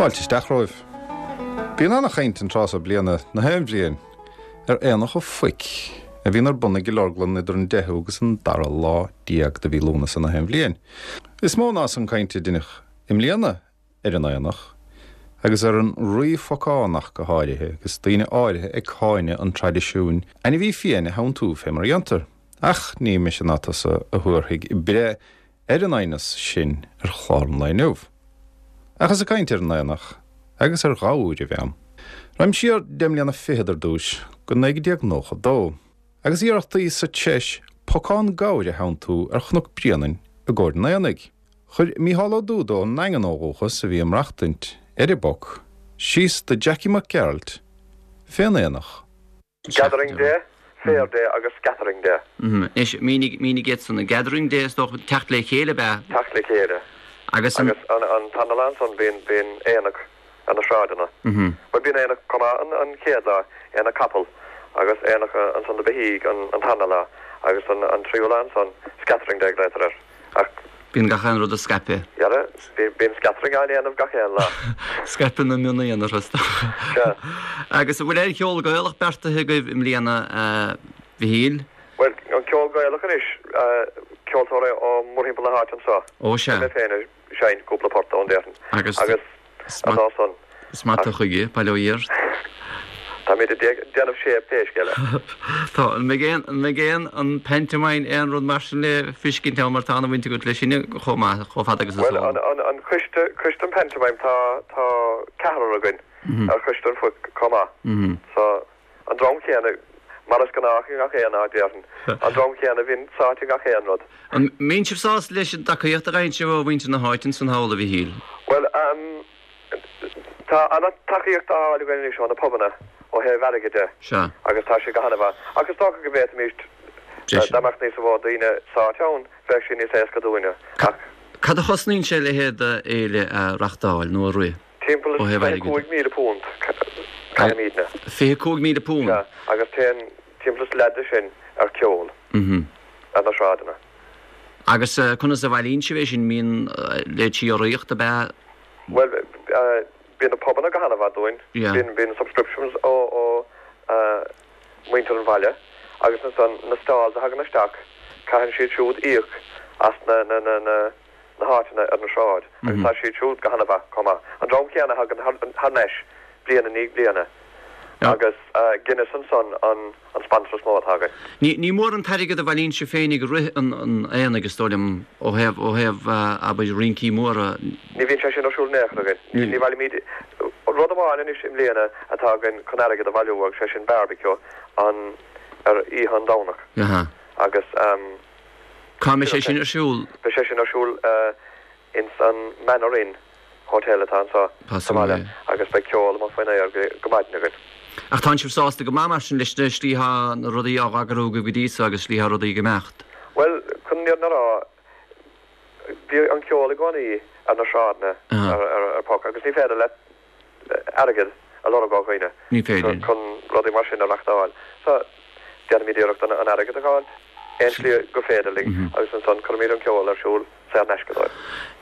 Fáilte isteach romhaibh. Bíonn ana-chaint an tráth so bliana, na haon bhliain, ar Aonach an Phoic, a bhíonn ar bun i gCill Orglan idir an 10ú agus an dara lá de mhí Lúnasa na haon bhliain. Is mó ná san cainte a deineadh i mbliana ar an aonach, agus ar an Rí Phocán ach go háirithe, agus daoine áirithe ag cáineadh an traidisiúin ainmhí fiáin a theanntú fé mar a dhéantar. Ach ní mise ná tusa a thabharfaidh breith ar an aighneas sin ar chlár an lae inniu. Ach is ag caint ar an aonach agus ar ghabhair a bheam. Raghaim siar deich mbliana fichead ar dtúis, go 1992, agus iarrachtaí sa tSeis pocán gabhair a theanntú ar Chnoc Bréanainn i gcomhair an aonaigh. Chuir Mícheál Ó Dúda ón nDaingean ó dhúchas, a bhí ag maireachtaint ar an bPoc, síos do Jackie Mac Gearailt fén aonach. Gathering Day, Fair Day agus Scattering Day. Anois, mínigh, mínigh iad san. Gathering Day, is dócha, teacht le chéile ab ea? Teacht le chéile. Agus an. Agus an tarna lá ansan bíonn, bíonn aonach ar na sráideanna. Bhuel, bíonn aonach chomh maith an chéad lá, aonach capall, agus aonach ansan do beithígh an tarna lá, agus an tríú lá ansan, Scattering Day a ghlaotar air. Ach. Bíonn gach aon rud á scaipeadh. Dhera, bíonn scattering á ndéanamh gach aon lá. Scaipeadh na mionaonar, is dócha. Sea. Agus an bhfuil aon cheol Gaelach beartaithe agaibh i mbliana, a Mhichíl? Bhuel, an ceol Gaelach anois, ceoltóirí ó mórthimpeall na háite anseo. Ó, sea. Beidh mé féin ag seinnt cúpla port ann, déarfainn. Agus. Agus. An lá san. Is maith tú chuige, bail ó Dhia ort. Táimid ag déanamh séimh pé scéal é. Tá. An mbeidh aon, an mbeidh aon, an pantomime, aon rud mar sin le feiscint ann mar tá ana-bhaint agat leis sin chomh maith, chomh fada agus is eol. Bhuel, an, an coiste, coiste an pantomime, tá, tá ceathrar againn ar choiste an phoic chomh maith. So, an dream céanna, mar is gnách i ngach aon áit, déarfainn, an dream céanna a bhíonn sáite i ngach aon rud. An mbíonn sibh sásta leis an dtacaíocht a fhaigheann sibh ó mhuintir na háite ansan thall, a Mhichíl? Bhuel, tá an-tacaíocht á fháil againn anois ó na pubanna ó thaobh airgid de Sea. agus tá sé go han-mhaith. Ach is dócha go bhféadfaimíst, dá mbeadh níos mó daoine sáite ann, bheadh sé níos éasca dúinne. Ach. Cad a chosnaíonn sé a leithéid d'fhéile a reachtáil nó a rith Timpeall ó thaobh airgid de? £25,000, caithimídne. £25,000? Sea, agus téann timpeall is leath de sin ar cheol. Ar na sráideanna. Agus conas a bhailíonn sibh é sin? Mbíonn leithéidí urraíocht ab ea? Bhuel, bíonn na pubanna go han-mhaith dúinn. Yeah. Bíonn subscriptions ó mhuintir an bhaile agus ansan na stalls a thagann isteach, caitheann siad siúd íoc as na na háiteanna ar an sráid agus tá siad siúd go han-mhaith chomh maith. An dream céanna a thagann thar n-ais bliain i ndiaidh bliana agus Guinness ansan an sponsor is mó atá againn. Ní mór an t-airgead a bhailíonn sibh féin ag rith an aonaigh, is dóigh liom, ó thaobh, ó thaobh, abair, rincí móra. Ní bhíonn sé sin ar siúl in aon chor againn. Ní bhailímid rud amháin anois i mbliana atá againn chun airgead a bhailiú agus sé sin barbecue an, ar oíche an Domhnach agus. Cá mbeidh sé sin ar siúl? Beidh sé sin ar siúl ins an Manor Inn Hotel atá anseo sa bhaile agus beidh ceol amuigh faoin aer go maidin againn. Ach tánn sibh sásta go maith mar sin leis na slí thá na rudaí á eagrú agaibh go dtí so agus slí thá rudaí ag imeacht? Bhuel, chun an fhírinne a rá, bhí an ceol i gcónaí ar na sráideanna ar Puck agus ní féidir leat airgead a lorg ó dhaoine chun rudaí mar sin a reachtáil. So, déanaimid iarracht an airgead a fháil aon slí gur féidir linn agus ansan cuirimid an ceol ar siúl saor in aisce dóibh.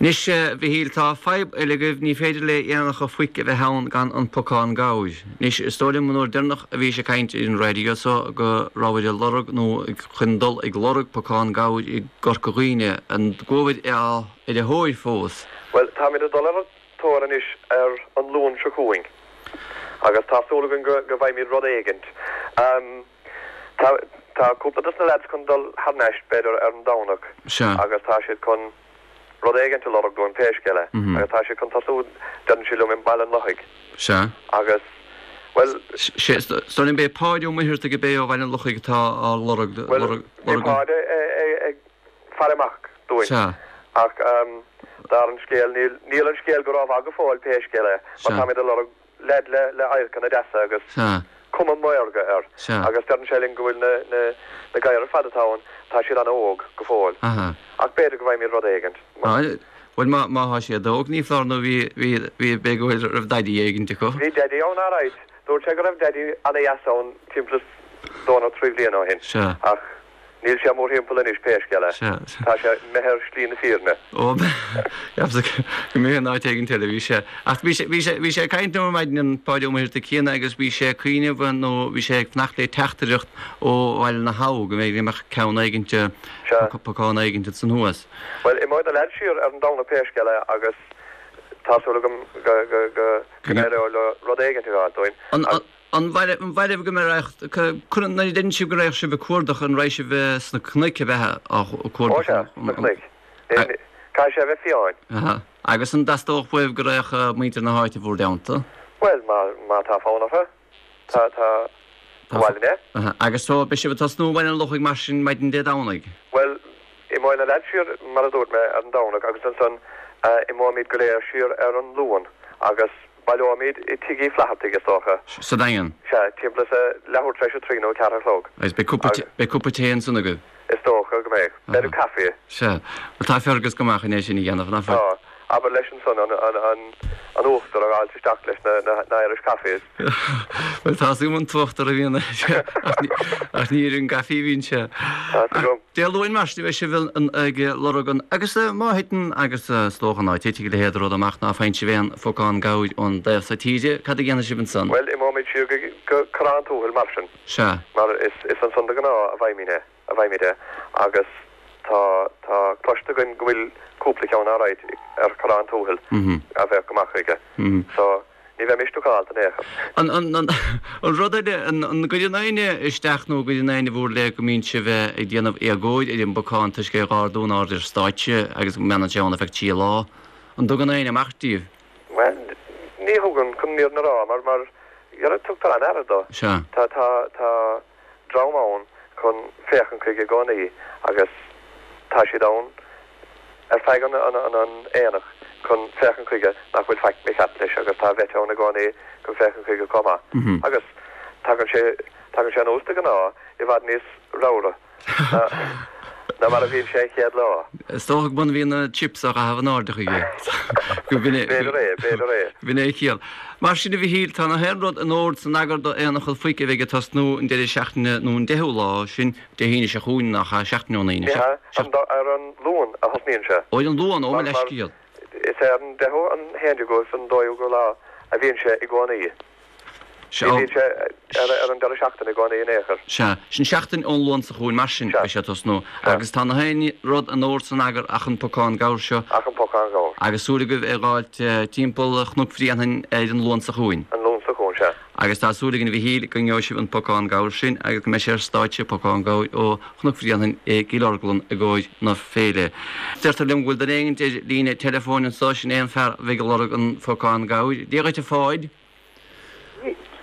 Anois, a Mhichíl, tá fadhb eile agaibh, ní féidir le aonach an phoic a bheith ann gan an pocán gabhair. Anois, is dóigh liom an uair deireanach a bhís ag caint ar an raidió so go rabhair ag lorg nó chun dul ag lorg pocán gabhair i gCorca Dhuibhne. An gcuabhair ar a thóir fós? Bhuel, táimid ag dul ar an tóir anois ar an Luan seo chugainn agus tá súil againn go bhfaighimid rud éigint. Tá tá cúpla dos na leaids chun dul thar n-ais b'fhéidir ar an Domhnach agus tá siad chun rud éigint a lorg dúinn pé scéal é agus tá siad chun tosú deireann siad liom i mBaile an Lochaigh agus bhuel. Sea, is dóigh liom b'é Páid Ó Muircheartaigh ab é ó Bhaile an Lochaigh atá á lorg, Bhuel bhí Páid ag faire amach dúinn. Sea. Ach dar an scéal, níl, níl an scéal go rómhaith go fóill pé scéal é, mar táimid ag lorg leaid le, le adharcanna deasa agus Sea. cuma maorga air. Sea. Agus deireann sé linn go bhfuil na, na, na gadhair ar fad atá ann, tá siad an-óg go fóill. Aha. Ach b'fhéidir go bhfaighimid rud éigint. Bhuel, má, má thá siad óg, ní foláir nó bhí, bhí, bhí, b'fhéidir go bhfuil, raibh daidí éigint acu. Bhí daidí ann alright. Dúirt sé go raibh daidí an-dheas ann timpeall is dó nó trí bhliana ó shin. Sea. Ach. Níl sé mórthimpeall anois pé scéal é. Sea. Tá sé imithe ar shlí na fírinne. Ó, cheapas go mb'é in áit éigin eile a bhí sé. Ach bhí sé, bhí sé, bhí sé ag caint liom ar maidin an Páidí Ó Muircheartaigh céanna agus bhí sé ag cuimhneamh nó bhí sé ag fanacht le teachtaireacht ó Bhaile na hAbha go mb'fhéidir go mbeadh ceann éigint, Sea. pocán éigint ansan thuas. Bhuel, imeoidh na leaids siar ar an Domhnach pé scéal é agus tá súil agam go, go, go, go n-éireoidh leo rud éigint a fháil dúinn. An, an. An mhairbh go mbeadh, nuair a deireann sibh go raghadh sibh ag cuardach, an raghaidh sibh sna cnoic a bheith á cuardach? Ó sea, sna cnoic. Caithfidh sé a bheith fiáin. Aha. Agus an dteastódh uaibh go raghadh muintir na háite bhur dteannta? Bhuel, má tá fonn orthu, tá, tá, ba mhaith linn é. Aha. Agus so, beidh sibh ag tosnú i mBaile an Lochaigh mar sin maidin Dé Domhnaigh? Bhuel, imeoidh na leaids siar, mar a dúirt mé, ar an Domhnach agus ansan imeoimid go léir siar ar an Luan agus Baileoimid i Tigh Uí Flathartaigh, is dócha. Sa Daingean. Sea, timpeall is a leathuair tar éis a trí nó a ceathair a chlog. Agus beidh cupa, beidh cupa tae ansan agaibh? Is dócha go mbeidh. B'fhéidir caife. Sea. Bhuel, tá Fergus go maith chun é sin a dhéanamh, nach bhfuil? Tá. Abair leis ansan an, an, an, an uachtar a dh'fháilt isteach leis na, na, na Irish Coffees. Bhuel, tá's agam an t-uachtar a bhíonn air, ach ní, ach ní ar an gcaife a bhíonn sé. Tá's agam. Dé Luain mar sin a bheidh sibh ag lorg an agus má thiteann agus is dócha ná titfidh a leithéid de rud amach ná faigheann sibh aon phocán gabhair ón dtaobh so tíre, cad a dhéanfaidh sibh ansan? Bhuel, imeoimid siar go Corrán Tuathail mar sin. Sea. Mar is ansan de ghnáth a bhfaighimid é, a bhfaighimid é agus tá, tá cloiste againn go bhfuil cúpla ceann alright ar Chorrán Tuathail a bheadh go maith chuige. So. Ní bheimis stucálta in aon chor. An rud eile, an gcuireann éinne isteach nó an gcuireann éinne i bhur leith go mbíonn sibh ag déanamh éagóir ar an bpocán toisc é a dh'ardú in airde ar stáitse agus go mbeann sé ann ar feadh trí lá? An dtugann éinne amach díobh? Bhuel, ní thugann, chun an fhírinne a rá, mar, mar, tugtar an-aire dó. Sea. Tá, tá, tá. dream ann chun féachaint chuige i gcónaí agus tá siad ann ar feadh an aonach chun féachaint chuige nach bhfuil faic mícheart leis agus tá vet ann i gcónaí chun féachaint chuige chomh maith. Agus tagann sé tagann sé anuas de ghnáth i bhfad níos ramhra ná mar a bhíonn sé an chéad lá. Is dócha go mbíonn na chips á gcaitheamh in airde chuige. B'fhéidir é, b'fhéidir é. B'in é a chiall. Mar sin a Mhichíl, tá na haon rud in ord san eagar do Aonach an Phoic a bheidh ag tosnú an deireadh seachtaine nó an deichiú lá, sin Dé hAoine seo chugainn, nach ea, seachtain ón Aoine. Ní hea, ar an Luan a thosnaíonn sé. Ó, ar an Luan, ó mo leithscéal. Is ar an deichiú, an haon déagú agus an dóú lá a bhíonn sé i gcónaí. Ní bhíonn sé ar an deireadh seachtaine i gcónaí in aon chor. Sea, sin seachtain ón Luan seo chugainn mar sin, beidh sé ag tosnú. Agus tá na haon rud in ord san eagar ach an pocán gabhair seo. Ach an pocán gabhair. Agus súil agaibh é dh'fháilt timpeall Chnoc Bhréanainn ar an Luan seo chugainn. An Luan seo chugainn, sea. Agus tá súil againn a Mhichíl go ngeobhaidh sibh an pocán gabhair sin agus go mbeidh sé ar stáitse, pocán gabhair ó Chnoc Bhréanainn i gCill Orglan i gcomhair na féile. Deirtear liom go bhfuil duine éigint ar líne teileafóin anso, sin é an fear a bheidh ag lorg an phocáin gabhair. Dia dhuit a Pháid.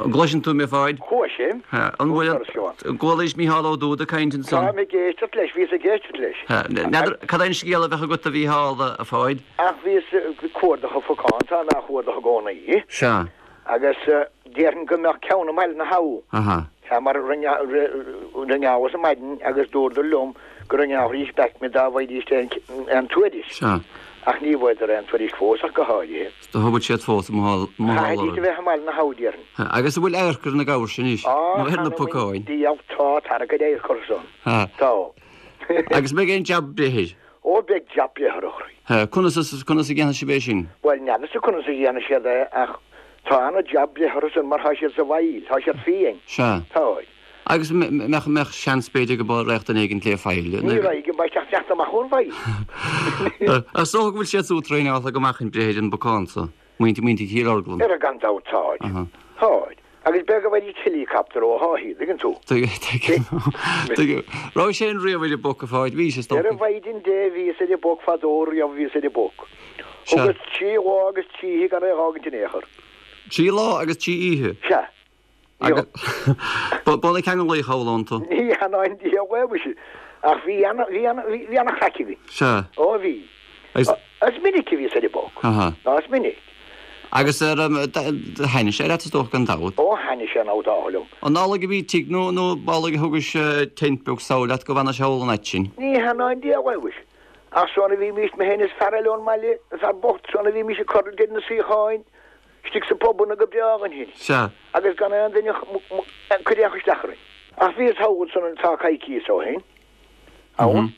An gcloiseann tú mé, a Pháid? Cloisim. An bhfuil an gcualaís Mícheál Ó Dúda ag caint ansan? Táim ag éisteacht leis, bhíos ag éisteacht leis. N'fheadar cad é an scéal a bheadh agat a Mhícheál, a Pháid? Ach bhíos ag cuardach an phocáin, táim á chuardach i gcónaí. Sea. Agus déarfainn go mbeadh ceann i mBaile na hAbha. Aha. Sea, mar ringeálas ar maidin agus dúradar liom go ringeálfaidís back mé dá bhfaighidís aon tuairisc. Sea. Ach ní bhfuaireadar aon tuairisc fós ach go háirithe. Do thógfadh siad fós i mo Chaithfidís a bheith i mBaile na hAbha, déarfainn. Agus an bhfuil adharc ar na gabhair sin anois? Nó ar na pocáin? Diabhal, tá, tá an-chuid adharc orthu san. Tá. Agus an mbeidh aon jab breith air? Ó, beidh jab breith air, a chroí. Conas, conas a dhéanfaidh sibh é sin? Bhuel, n'fheadarsa conas a dhéanfaidh siad é ach tá ana-jab breith orthu san mar tá siad sa bhfaill, tá siad fiain. Sea. Tá. Agus mbeadh, mbeadh seans b'fhéidir go raghadh duine éigin lé faill. Ní raghaidh, go mbeidh teacht teacht amach ón bhfaill. Is dócha go bhfuil siad súd traenáilte go maith chun breith ar an bpocán so, muintir, muintir Chill Orglan. Ara gan dabht táid. Táid. Agus b'fhéidir go bhfaighidís heileacaptar ó Dháithí, tuigeann tú. Tuigim. Tuigim. Raibh sé in riamh ar an bpoc a Pháid? Bhís, is dócha. Ar a mhaighdean Dé bhíos ar an bpoc fadó riamh bhíos ar an bpoc. Thugas trí lá agus trí oíche gan é a dh'fhágaint in aon chor. Trí lá agus trí oíche? Sea. Agus ba na ceangal thall iontu. Ní hea ná an diabhal é muise, ach bhí ana, bhí ana, bhí ana chraic againn. Sea. Ó bhí. Agus. Is minic a bhíos ar an bpoc. Aha. Ná is minic. Agus ar, thaitnigh sé leat is dócha gan dabht. Ó thaitnigh sé an dá liom. An amhlaidh a bhí tigh nó, nó b'amhlaidh a thugais tent beag sall leat go bhfanais thall an fhaid sin? Ní hea ná an diabhal é muise. Ach san a bhímís, mé féin is fear eile ón mbaile, an fear bocht, san a bhímís ag cur idir na suíocháin, Istigh sa bpubanna go breá againn féin. Sea. Agus gan aon duine ag cur aon chur isteach orainn. Ach bhíos thall ansan tá coicíos ó shin. Ann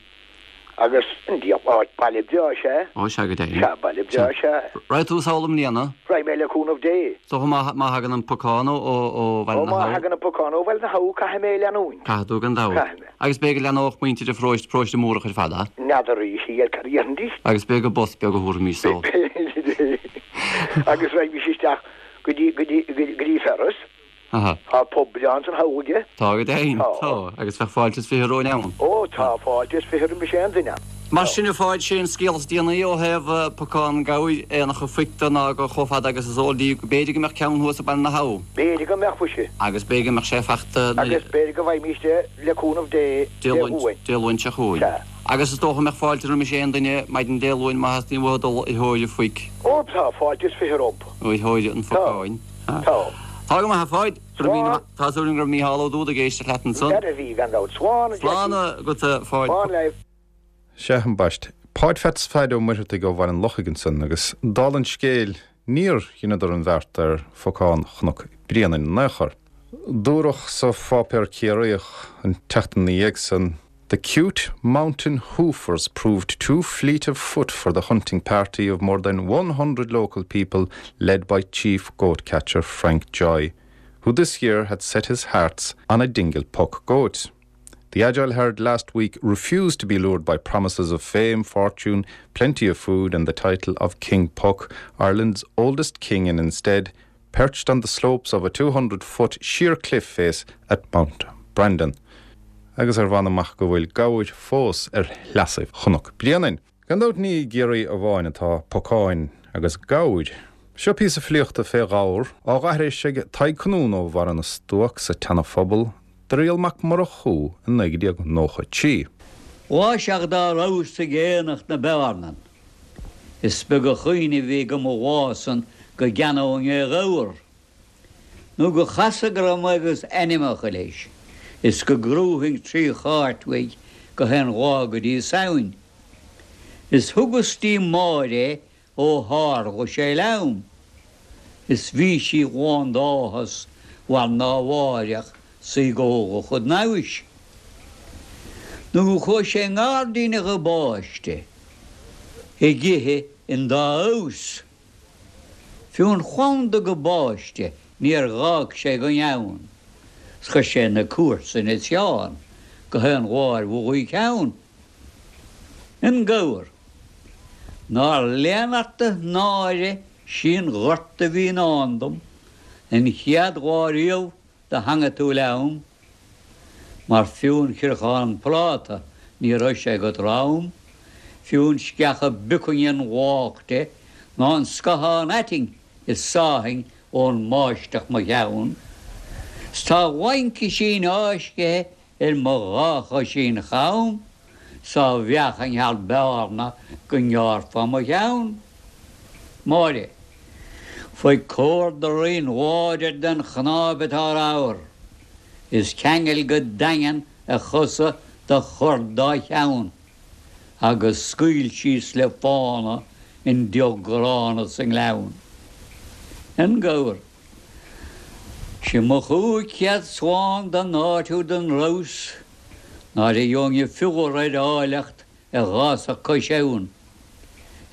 agus an diabhal áit, baile breá is ea. Ó, sea go deimhin. Sea, baile breá is ea. Raghaidh tú sall i mbliana? Raghaidh mé le cúnamh Dé. Is dócha má má thagann an pocán ó ó Bhaile Ó na má hAbha. thagann an pocán ó Bhaile na hAbha caithfidh mé leanúint. Caithfidh tú gan dabht. Caithfidh mé. Agus b'fhéidir go leanódh muintir an pharóiste, paróiste Múrach ar fad, a? N'fheadar a Mhíchíl cad a dhéarfaidís. Agus b'fhéidir gur bus beag a thabharfaimis sall. Agus raghaimís isteach go dtí go dtí go dtí Ferris. Aha. Tá pub breá ansan thall aige. Tá go deimhin. Tá. Tá. Agus bheadh fáilte is 20 romhainn ann. Ó, tá fáilte is 20 roimis aon duine ann. Mar sin, a Pháid, sé an scéal is déanaí ó thaobh pocán gabhair, éanacha phoic de ná gur chomh fada agus is eol daoibh go b'fhéidir go mbeadh ceann thuas i Baile na hAbha. B'fhéidir go mbeadh, mhuise. Agus b'fhéidir go mbeadh sé fachta nuair. Agus b'fhéidir go bhfaighimíst é, le cúnamh Dé, Dé Luain. Dé Luain seo chugainn. Sea. Agus is dócha go mbeadh fáilte roimis aon duine maidin Dé Luain má theastaíonn uathu dul ar thóir an phoic. Ó, tá fáilte is 20 rompu. Ar thóir an phocáin. Tá. Tá go maith, a Pháid. Slán. Tá súil agam go raibh Mícheál Ó Dúda ag éisteacht leat ansan. N'fheadar a bhí, gan dabht. Slán, a Jackie. Slán agat, a Pháid. Slán libh. Sea, ambaist. Páid Pheats Pheaid Ó Muircheartaigh ó Bhaile an Lochaigh ansan agus dála an scéil níor dheineadar an bheart ar phocán Chnoc Bréanainn in aon chor. Dúradh sa pháipéar Ciarraíoch an tseachtain ina dhiaidh san, The cute mountain hoofers proved too fleet of foot for the hunting party of more than 100 local people led by chief goat catcher Frank Joy, who this year had set his hearts on a Dingle puck goat. The agile herd last week refused to be lured by promises of fame, fortune, plenty of food and the title of King Puck, Ireland's oldest king and instead perched on the slopes of a 200-foot sheer cliff face at Mount Brandon. Agus ar mh'anam ach go bhfuil gabhair fós ar shleasaibh Chnoc Bréanainn. Gan dabht ní i gCiarraí amháin atá pocáin agus gabhair. Seo píosa filíochta fé ghabhar, á dh'aithris ag Tadhg Conún ó Bharra na Stuac sa tSeana-Phobal, do Riall Mac Murchú i 1993. Mhaise ach dá rabhas ag aonach na Bearnan. Is beag a chuimhne a bhí agam an lá san go gceannóinn aon ghabhar, nó go chasadh go raibh mé agus ainmeacha leis, is go gcrúfainn tri chairt uaidh gach aon lá go dtí Samhain. Is thugas dtí Máire é ó tharla sé liom, is bhí sí lán d'áthas mar ná mháireach 's í ag ól a chuid namhais. Nó go chuaigh sé i ngairdín a ghabáiste ag ithe an dá fheabhas. Fiú an phlanda gabáiste níor dh'fhág sé gan ann, 's chuir sé na comharsain is Seán gach aon lá ar bhuille a cheann. An gabhar. Nár lean ort a náire sí an gorta a bhí i ndán dom an chéad lá riamh do theangaigh tú liom, mar fiú an chriochán práta ní raibh sé agat romham, fiú an sceach a bpiocfainn an bhláth de ná an scathán aitinn is sáfainn ón mbáisteach mo cheann. 'S tá laincisín fháiscthe Ar mo dhá choisín cham 's á mheáchain thar bearna go ngearrfá mo cheann. Máire. Faigh córda righin láidir den chnáib atá ramhar, is ceangail go daingean a chosa do chur dá cheann, agus scaoil síos le fána an deoch ghránna sa ngleann. An gabhar. Sé mo 500 slán don áit úd an rabhas, náire gheobhainn fiolar ar áilleacht a dh'fhásfadh cois abhann.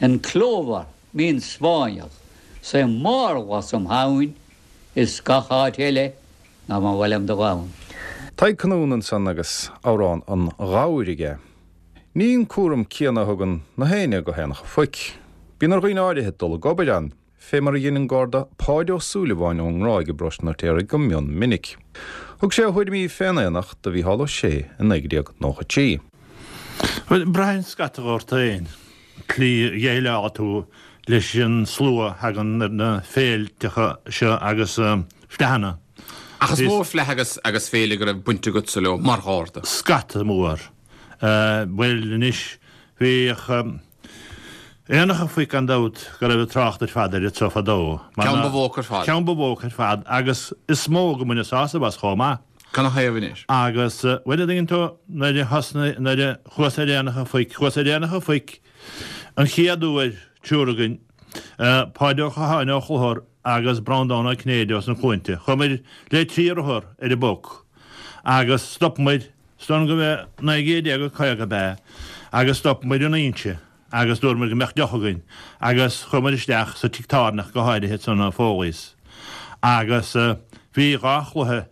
An clóbhar mín Spáinneach 's é márla im thamhain is gach áit eile ná ba mhaith liom dul ann. Tadhg Conún ansan agus amhrán an ghabhair aige. Ní an cúram céanna a thugann na héinne go haonacha phoic. Bíonn ar dhaoine áirithe dul ag obair ann. fé mar a dhein an Garda Páid Ó Súilleabháin ón nGráig i bparóiste an Fheirtéaraigh go mion minic. Thug sé a thuairimí fén aonach do Mhícheál Ó Sé i 1993. Bhuel, braitheann scata ort féin, tslí a dhéileálfaidh tú leis an slua a thagann ar na féilteacha seo agus fleadhanna. Ach is mó fleadh agus agus féile go raibh baint agatsa leo mar Gharda. Scata mór. Bhuel, anois, bhíodh. Aonach an Phoic gan dabht go raibh trácht ar fad air anso fadó. Ceann ba mhó ar fad. Ceann ba mhó ar fad agus is mó go mbaineadh sásamh as chomh maith. Canathaobh anois? Agus, bhuel, a dtuigeann tú, nuair a thosnaigh, nuair a chuas ar Aonach an Phoic, chuas ar Aonach an Phoic an chéad uair, triúr againn, Páid Ó Catháin ó Chlochar agus Breandán Ó Cinnéide ós na Cluainte. Chuamair le trí rothar ar an bpoc agus stopamair. Is dóigh liom go b'é 1950 ab ea agus stop muid in Inse agus dúirt muid go mbeadh deoch againn agus chuaigh muid isteach sa tigh tábhairne go háirithe ansan i Foley's agus bhí dhá chluiche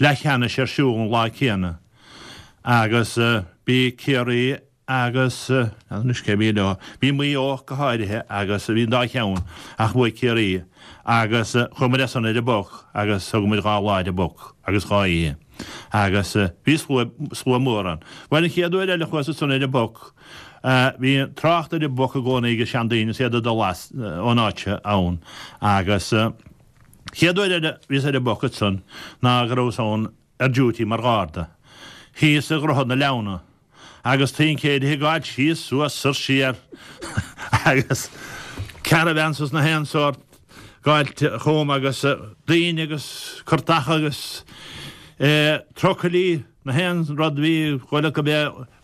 leathcheannais ar siúl an lá céanna agus bhí Ciarraí agus anois cé a bhí leo, bhí Maigh Eo go háirithe agus bhí an dá cheann ach bhuaigh Ciarraí agus chuaigh muid as san ar an bPoc agus thug muid dhá lá ar an bPoc agus dhá oíche agus bhí slua, slua mór ann. Bhuel an chéad uair eile a chuas ansan ar an bPoc bhí trácht ar an bPoc i gcónaí ag seandaoine is iad ag dul as ón áit seo ann agus chéad uair eile a bhíos ar an bPoc ansan ná go rabhas ann ar duty mar gharda thíos i Droichead na Leamhna agus tincéirithe ag gabháil síos suas soir siar agus caravans is na haon sórt gabháil chugam agus daoine agus curtacha agus trucailí na haon rud bhí chuile go b'é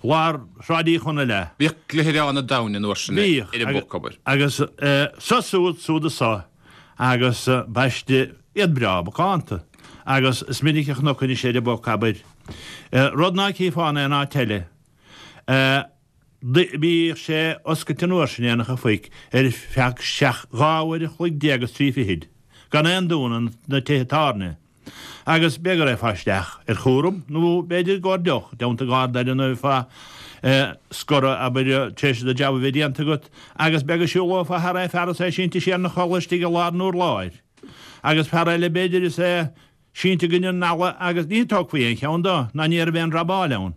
lár Shráid Uí Chonaill é. Bhíodh gluaireán an domhain an uair sin ar an bPoc, abair. Agus so suad suad is so agus baiste iad breá macánta agus is minic a chonac anois ar an bPoc, abair, rud ná cífeá in aon áit eile. Bhíodh sé oscailte an uair sin, Aonach an Phoic, ar feadh seacht, 12 uair a chloig agus trí fichid, gan aon dúnadh na tithe tábhairne. Agus b'fhéidir go raghfá isteach ar chúram nó b'fhéidir i gcomhair deoch, i dteannta garda eile nó bheifeá scortha, abair, tar éis do jab a bheith déanta agat, agus b'fhéidir go siúlófá thar aon fear is é sínte siar ina chodladh istigh i lár an urláir. Agus fear eile b'fhéidir is é sínte i gcoinne an fhalla agus ní tógfaí aon cheann dó ná ní raibh aon robáil ann.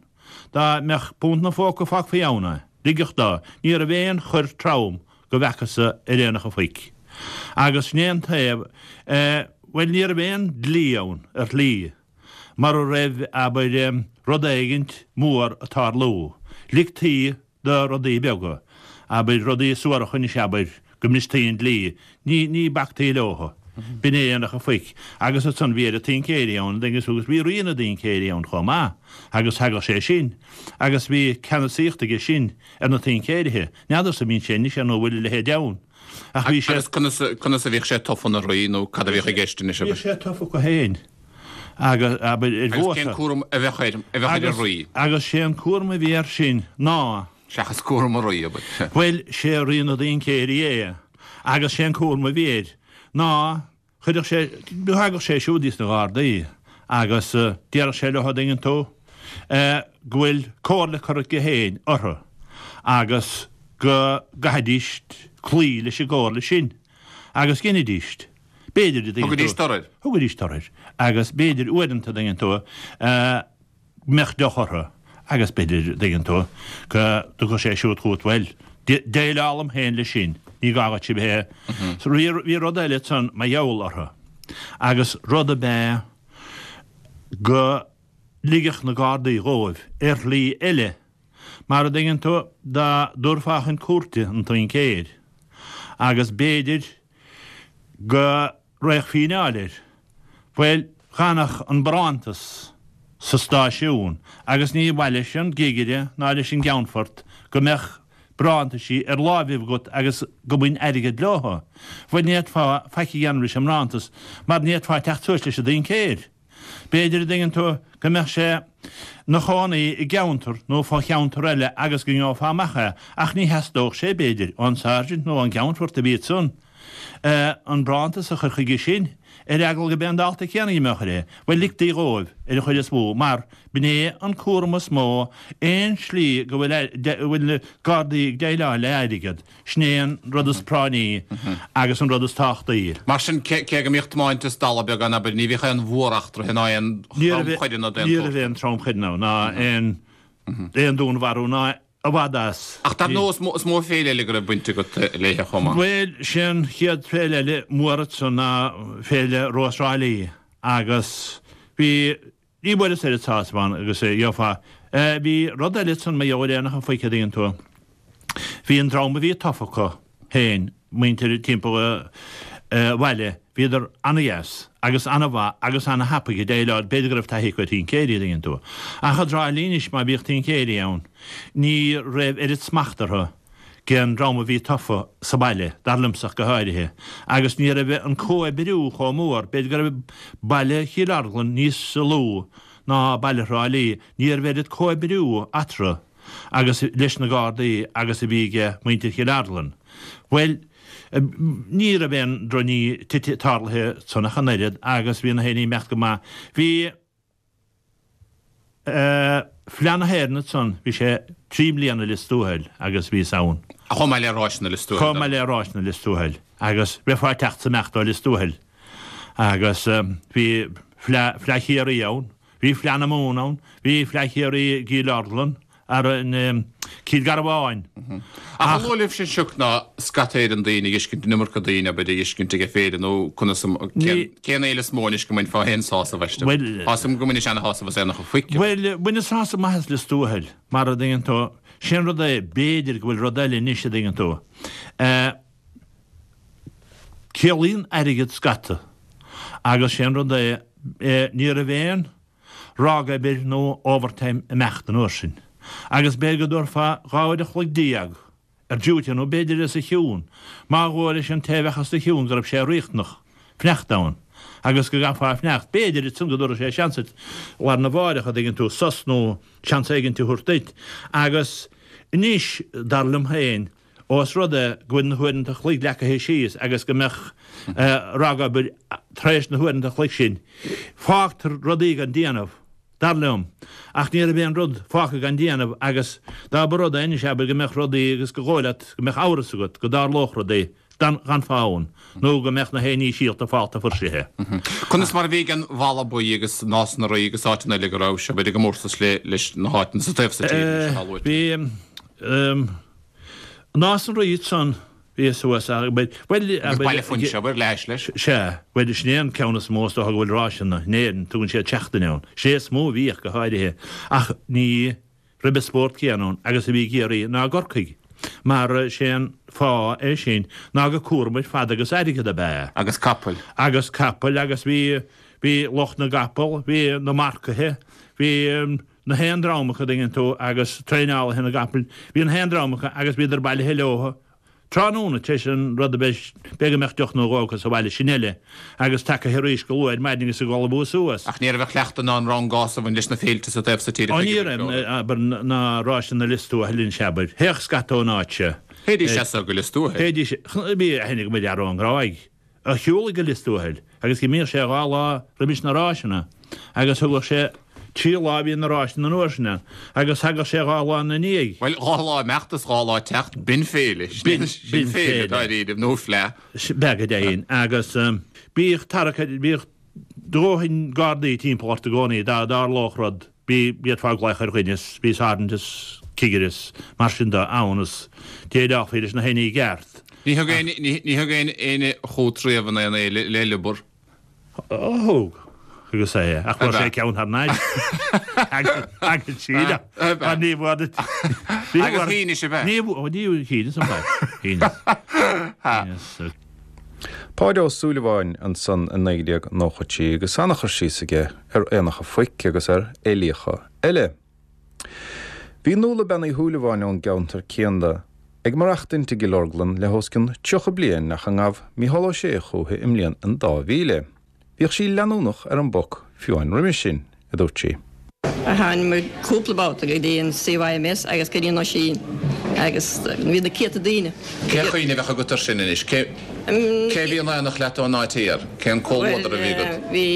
Dá mbeadh punt 'na phóca fágfaí ann é. Ligeadh dó. Ní raibh aon choir trom go bhfeacas-sa ar Aonach an Phoic. Agus sin é an taobh, eh, bhuel ní raibh aon dlí ann, ar shlí, mara raibh, abair, rud éigint mór ag tarlú. Ligtí do rudaí beaga, abair, rudaí suaracha anois, abair, go mbristí an dlí, ní, ní bactaí leothu. B'in é Aonach an Phoic. Agus ansan bhí oiread tincéirí ann, agus bhí rí na dtincéirí ann chomh maith, agus thagadh sé sin, agus bhí ceannasaíocht aige sin ar na tincéirithe. N'fheadarsa an mbíonn sé anois nó an bhfuil a leithéid ann. Ach bhí sé. Agus conas, conas a bhíodh sé tofa ina rí nó cad a bhíodh i gceist anois, abair? Bhíodh sé tofa acu féin agus, abair, ar Agus cén vóta. cúram a bheadh air, a bheadh ar an Agus, rí? agus sé an cúram a bhí air sin ná. Seachas cúram an rí, abair. Bhuel, sé rí na dtincéirí é agus sé an cúram a bhí air ná Chuirfeadh sé, thagadh sé siúd dtí na Gardaí agus déarfadh sé leo, an dtuigeann tú, go bhfuil comhairle curtha aige féin orthu agus go gcaithfidís cloí leis an gcomhairle sin agus dheinidís. B'fhéidir, an dtuigeann tú. Thugaidís tor air. Thugaidís tor air agus b'fhéidir uaireanta, an dtuigeann tú, mbeadh deoch orthu agus b'fhéidir, dtuigeann tú, go dtiocfadh sé siúd chugat, bhuel, déileálaim féin leis sin, ní gá dhuit a bheith, bhí rud eile ansan mar gheall orthu agus rud ab ea go ligfeadh na Gardaí dhóibh ar shlí eile, mar a dtuigeann tú, dá dtabharfá chun cúirte an tincéir agus b'fhéidir go raghadh fíneáil air. Bhuel, dh'fhanfadh an barántas sa stáisiún agus ní mhaith leis an gcigire ná leis an gceannfort go mbeadh barántaisí ar láimhibh agat agus go mbain airgead leothu. Bhuel, ní fhéadfá faic a dhéanamh leis an mbarántas mar ní fhéadfá teacht suas leis an dtincéir. B'fhéidir, a dtuigeann tú, go mbeadh sé 'na chónaí i gceantar nó fo-cheantar eile agus go ngeofá amach é, ach ní theastódh sé, b'fhéidir, ón sáirsint nó ón gceannfort a bhí ansan, an barántas a chur chuige sin, ar eagla go b'é an dalta céanna a mbeadh air é. Bhuel, ligtí dhóibh, ar an chuid is mó, mar b'in é an cúram is mó, aon slí go bhfuil na Gardaí ag déileáil le airgead, Sin é an rud is práinní agus an rud is tábhachtaí. Mar sin, cé go mbíodh tiomáint is dalladh beag ann, abair, ní bhíodh aon mhóreachtraithe ná aon thromchoireanna d'aon tsórt. Ní raibh aon tromchoireanna ná aon dúnmharú ná i bhfad as. Ach dar ndóigh, is mó féile eile go raibh baint agat léithe chomh maith. Bhuel, sé an chéad féile eile mór ansan ná Féile Rós Thrá Lí agus bhí Ní bhfuaireas oiread sásamh ann agus a gheofá. Bhí rud eile ansan mar gheall ar Aonach an Phoic a dtuigeann tú. Bhí an dream a bhí tofa acu féin, muintir timpeall an bhaile, bhíodar ana-dheas agus ana-mhaith agus ana-thapaidh ag déileáil, b'fhéidir go raibh taithí acu ar thincéirí a dtuigeann tú. Ach i dTrá Lí anois má bhíodh tincéirí ann ní raibh oiread smacht orthu den dream a bhí tofa sa bhaile, dar liomsa ach go háirithe, agus ní raibh an comhoibriú chomh mór, b'fhéidir go raibh baile Chill Orglan níos lú. ná baile Thrá Lí, ní raibh oiread comhoibriú eatarthu agus leis na Gardaí agus a bhí ag muintir Chill Orglan. Bhuel, ní raibh aon drochní tite tarlaithe ansan ach an oiread agus bhí na haon ní imeacht go maith. Bhí Fleadh na hÉireann ansan, bhí sé 3 mbliana i Lios Tuathail agus bhíos ann. Chomh maith le Ráiseanna Lios Tuathail. Chomh maith le Ráiseanna Lios Tuathail agus bheifeá ag teacht is imeacht ó Lios Tuathail agus bhí Fleadh Fleadh Chiarraí ann, bhí Fleadh na Mumhan ann, bhí Fleadh Chiarraí i gCill Orglan, ar an Cill Garbháin. Ach an luath libhse an sioc ná scata Éireann daoine ag fheiscint an iomarca daoine abair ag fheiscint ag féile nó conas an cén fhéile is mó anois go mbainfeá féin sásamh aisti? Tá 'fhios a'm go mbainis ana-shásamh as Aonach an Phoic. Bhuel, baineas sásamh maith as Lios Tuathail, mar a dtuigeann tú, sé'n rud é, b'fhéidir go bhfuil rud eile anois a dtuigeann tú. Ciallaíonn airgead scata agus sé'n rud é, ní raibh aon ragobair nó overtime imeacht an uair sin, agus b'fhéidir go dtabharfá 12 uair a chloig ar duty nó b'fhéidir os a chionn, má dhóigh leis an té a bheadh os do chionn go raibh sé riachtanach fanacht ann agus go gcaithfeá fanacht, b'fhéidir ansan go dtabharfadh sé seans duit lá arna mháireach, a dtuigeann tú, sos nó seans éigint a thabhairt duit. Agus anois, dar liom féin, Ós rud é go bhfuil na huaireanta a chloig leagtha síos agus go mbeadh ragobair tar éis na huaireanta a chloig sin, fágtar rudaí gan déanamh, dar liom. Ach ní raibh aon rud fágtha gan déanamh agus dá mba rud é anois, abair, go mbeadh rudaí agus go dhóigh leat go mbeadh amhras agat go dtarlódh rudaí d'fhanfá ann nó go mbeadh na haon ní síolta fálta fuirsithe. Conas mar a bhí ag an Bhalla Buí agus Nás na Rí agus áiteanna eile go raibh sibh i gcomórtas leis na háiteanna sa taobh so tíre anois atá luaite? Bhí. Nás na Rí ansan, bhí suas ach, bhuel, Agus Baile Phúinse, abair, leis, leis. Sea, bhuel, sin é an ceann is mó is dócha go bhfuil ráiseanna in Éirinn, tugann siad seachtain ann. Sin é is mó a bhíodh, go háirithe, ach ní raibh an spórt céanna ann agus a bhí i gCiarraí ná i gCorcaigh, mar sé an fáth é sin ná gur cúram ar fad agus airgead ab ea é. Agus capaill. Agus capaill agus bhí, bhí lucht na gcapall, bhí na marcaithe, bhí. na haon dream acu, dtuigeann tú, agus traenálaithe na gcapall, bhí na haon dream acu agus bhíodar bailithe leo tráthnóna tar éis an rud a bheith, b'fhéidir go mbeadh deoch nó dhó acu sa bhaile, sin eile, agus tagaithe arís go luath ar maidin agus ag ullmhú suas. Ach ní raibh an cleachtadh ná an rangás a bhain leis na féilte sa taobh so tíre Ó ní raibh, abair, ná ráiseanna Lios Tuathail anois, abair. Théadh scata ón áit seo. Théidís as so go Lios Tuathail. Théidís, bhí aithne agam ar fhear ón nGráig. a shiúlaigh go Lios Tuathail agus d'imíodh sé 2 lá roimis na ráiseanna agus thugadh sé 3 lá a bhí na ráiseanna an uair sin ann agus thagadh sé 2 lá ina ndiaidh. Bhuel, 2 lá imeacht is 2 lá teacht, b'in féile. B'in, Sin féile, dáiríre, nó fleadh. B'ea go deimhin. Agus bhíodh tarrac ar, bhíodh dóthain gardaí timpeall ort i gcónaí dá dtarlódh rud. Bhí, d'fhéadfá glaoch ar dhuine is bhí sáirsint is cigire is mar sin de ann is déileálfaí leis na haon ní i gceart. Ní thug aon, ní thug aon éinne chugat riamh in aon fhéile le liobar? Ó thug, agus é, ach fuair sé ceann thar n-ais. Agus síle, mar ní bhfuair, ní bhfuair. Agus shínis ab ea? Ní, ó ní, shíneas ab ea, shíneas. Shíneas. Páid Ó Súilleabháin ansan i 1993 agus ana-chur síos aige ar aonacha phoic agus ar fhéilíocha eile. Bhí Nuala Bean Uí Shúilleabháin ón gceantar céanna ag maireachtaint i gCill Orglan le hos cionn 30 bliain ach a ngabh Mícheál Ó Sé chúithi i mbliain an 2000. Bhíodh sí leanúnach ar an bpoc fiú amháin roimis sin, a dúirt sí. Tháinig muid cúpla babhta go dtí an CYMS agus go dtí an Oisín agus bhí na céadta daoine. Cén chuimhne a bheadh agat air sin anois? Cé cé a bhí in aonacht leat ón áit thiar? Cén comhluadar a bhí agat? Bhí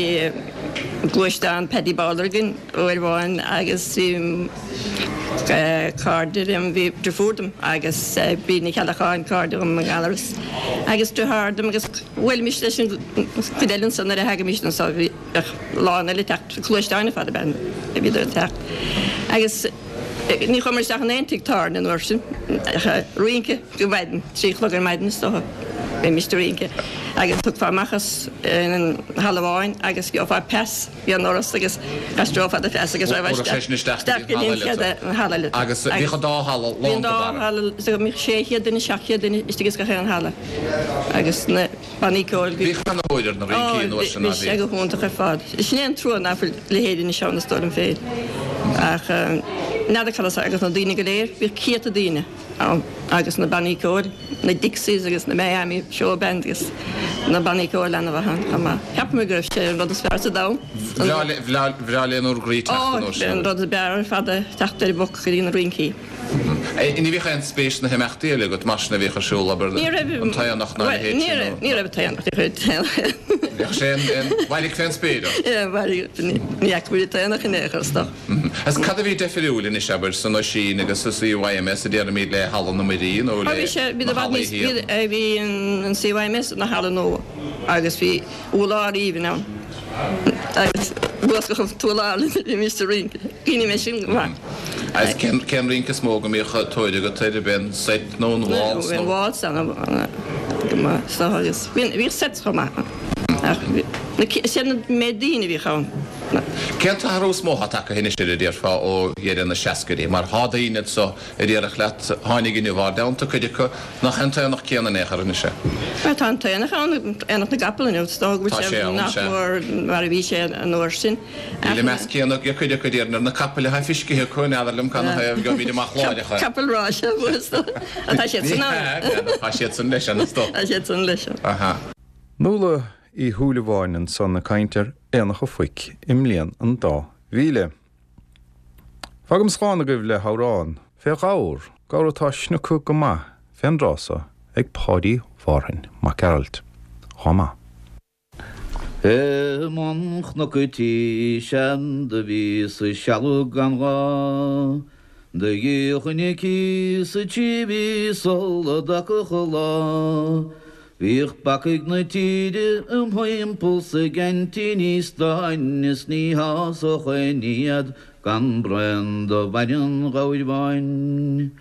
gluaisteán Paddy Bowler againn uair amháin agus bhí cairde liom, bhí deirfiúr dom agus Bríd Ní Cheallacháin, cairde dhom i nGallaras agus deartháir dom agus Bhuailimis leis an gcuid eile ansan nuair a thagaimis anso. Bheadh lán eile ag teacht, gluaisteáin ar fad ab ea a bhíodar ag teacht. Agus ní chuamar isteach in aon tigh tábhairne an uair sin ach rince go maidin, 3 a chlog ar maidin is dócha. Bheimis ag rince. Agus thiocfá amach as an halla amháin agus gheofá pas ag an ndoras agus d'aistreofá do phas agus raghfá isteach go dtí an chéad halla eile. Agus bhíodh an dá halla lán go barra. Bhí an dá halla, so bhíodh 600 duine, 700 duine istigh ins gach aon halla. Agus na bannaí ceoil. Bhíodh ana-thóir ar na rincí an uair sin, ná bhí? Bhí sé go hiontach ar fad. Sin é an trua ná fuil a leithéid anois ann is dóigh liom féin. Ach n'fheadar cad as agus na daoine go léir, bhíodh céadta daoine ann agus na bannaí ceoil, na Dixies agus na Miami Show Band agus na bannaí ceoil ana-mhaith ann chomh maith. Ceapaim go raibh sé an rud is fearr sa domhan. Bhreá le bhur gcroí teacht an uair sin. Ó, an rud is fearr ar fad é teacht ar an bpoc go dtí na rincí. Ní bhíodh aon spéis sna himeachtaí eile agat mar sin a bhíodh ar siúl, abair, an t-aonach ná a leithéid sin nó? Ní raibh t-aonach, ní raibh t-aonach. Bhíodh sé an mhairg fén spéir ort? Yeah, mhairg, ní fhaca muid an t-aonach in aon chor is dócha. Agus cad a bhí deifiriúil anois, abair, san Oisín agus sa CYMS a déarfaimid le Halla na Muirí nó le na hallaí thiar? Bhí an CYMS ina halla nua agus bhí urlár aoibhinn ann agus luascadh an t-urlár le bhímis ag rince. Cuimhním air sin go maith. Agus cén rince is mó go mbíodh tóir agat air, ab é an seit nó an waltz nó? An waltz ana go maith is dócha agus bhíodh sets chomh maith ann ach is iad an méid daoine a bhíodh ann. Cén t-athrú is mó atá tagtha anois air a déarfá ó dheireadh na seascaidí mar thá daoine anso a déarfadh leat, tháinig inniu ár dteannta, cuid acu, nach é an t-aonach céanna in aon chor anois é. Bhuel, tá an t-aonach ann, Aonach na gCapall inniu, is dócha go bhfuil sé nach mór mar a bhí sé an uair sin. Níl an meas céanna ag cuid acu, déarfainn, ar na capaill atá fiscithe acu, n'fheadar liom cad 'na thaobh, gheobhaimid amach láithreach é. Capaill ráis, is dócha. Tá siad san ann. Tá siad san leis an, is dócha. Tá siad san leis. Aha. Nuala Uí Shúilleabháin ansan ag caint ar Aonach a' Phoic i mbliain an dá mhíle. Fágaim slán agaibh le hamhrán fé ghabhar, gabhar atá snioctha go maith fén dtráth so ag Páidí Mhárthain Mac Gearailt. Dhá maith. I mbun Chnoc a' Tí sean do bhíos ag sealbhadh gan ghá Do gheobhainn a cíos sa trí mhí sula dtagfadh an lá Bhíodh bacaigh na tíre im thimpeall 's ag aintíní stáin is ní shásódh aon ní iad gan braon de bhainne an ghabhair bháin.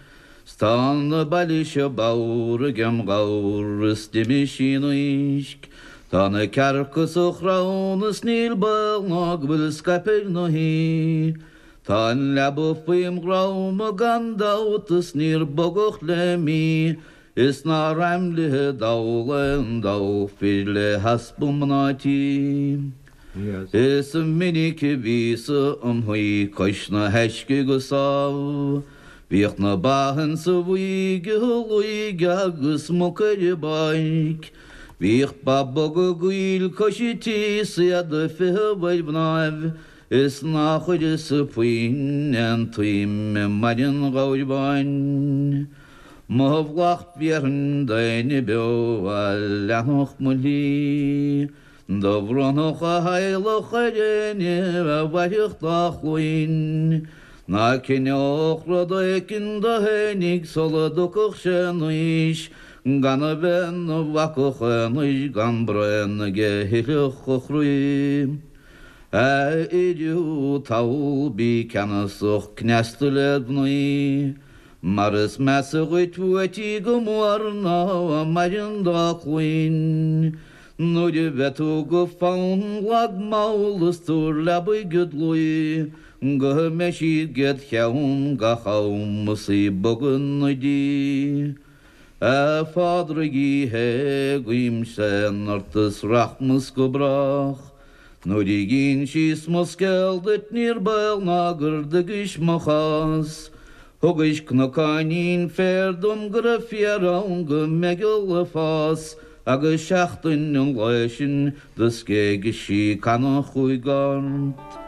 'S tá na baile seo bodhar agem ghabhar is d'imigh sí in uisce. Tá na cearca sa chrann is níl baol ná go bhfuil scaipthe ar na haoi. Tá an leaba faoim dhrom gan dabht is níor bogadh le mí Is nár aimlithe dall aon dall fir le heaspa mná tí. Is minic a bhíos-sa im shuí cois na huisce go sámh. Bhíodh na ba insa bhuaidh ag luigh agus muca ar an bpáirc. Bhíodh ba boga gaill cois an tí 's iad ag feitheamh ar mhnáibh is ná chuireas-sa puinn aon tsuim i mbainne an ghabhair bháin. Mo mhallacht bhéarfainn d'éinne beo a leanfadh mo shlí. Do bhronnfadh a theaghlach ar éinne a mhairfeadh dá chluain. Ná cinneodh rud éicint do fhéinig sula dtiocfadh sé in aois, gan a bheith 'na bhacach aonair gan braon aige a thithfeadh a chroí. A fhir thú tadhall bí ceannasach cneasta led mhnaoi. Mar is measa dhuit uait í go mór ná a maireann dá cluain. Nuair a bheidh tú go fann lag mall is tabhair leabaidh id luí go mbeidh siad 'ged cheann gach am is í ag bogadh 'na diaidh. A Phádraig Uí Shé guím séan ort is rachmas go brách. Nuair a dh'ínsíos mo scéal duit níor baol ná gur dtuigis mo chás. Thugais cnocáinín féir dom go raibh féar ann go meigeall ag fás agus seachtain an lae sin do scéigis sí canna chúig gort.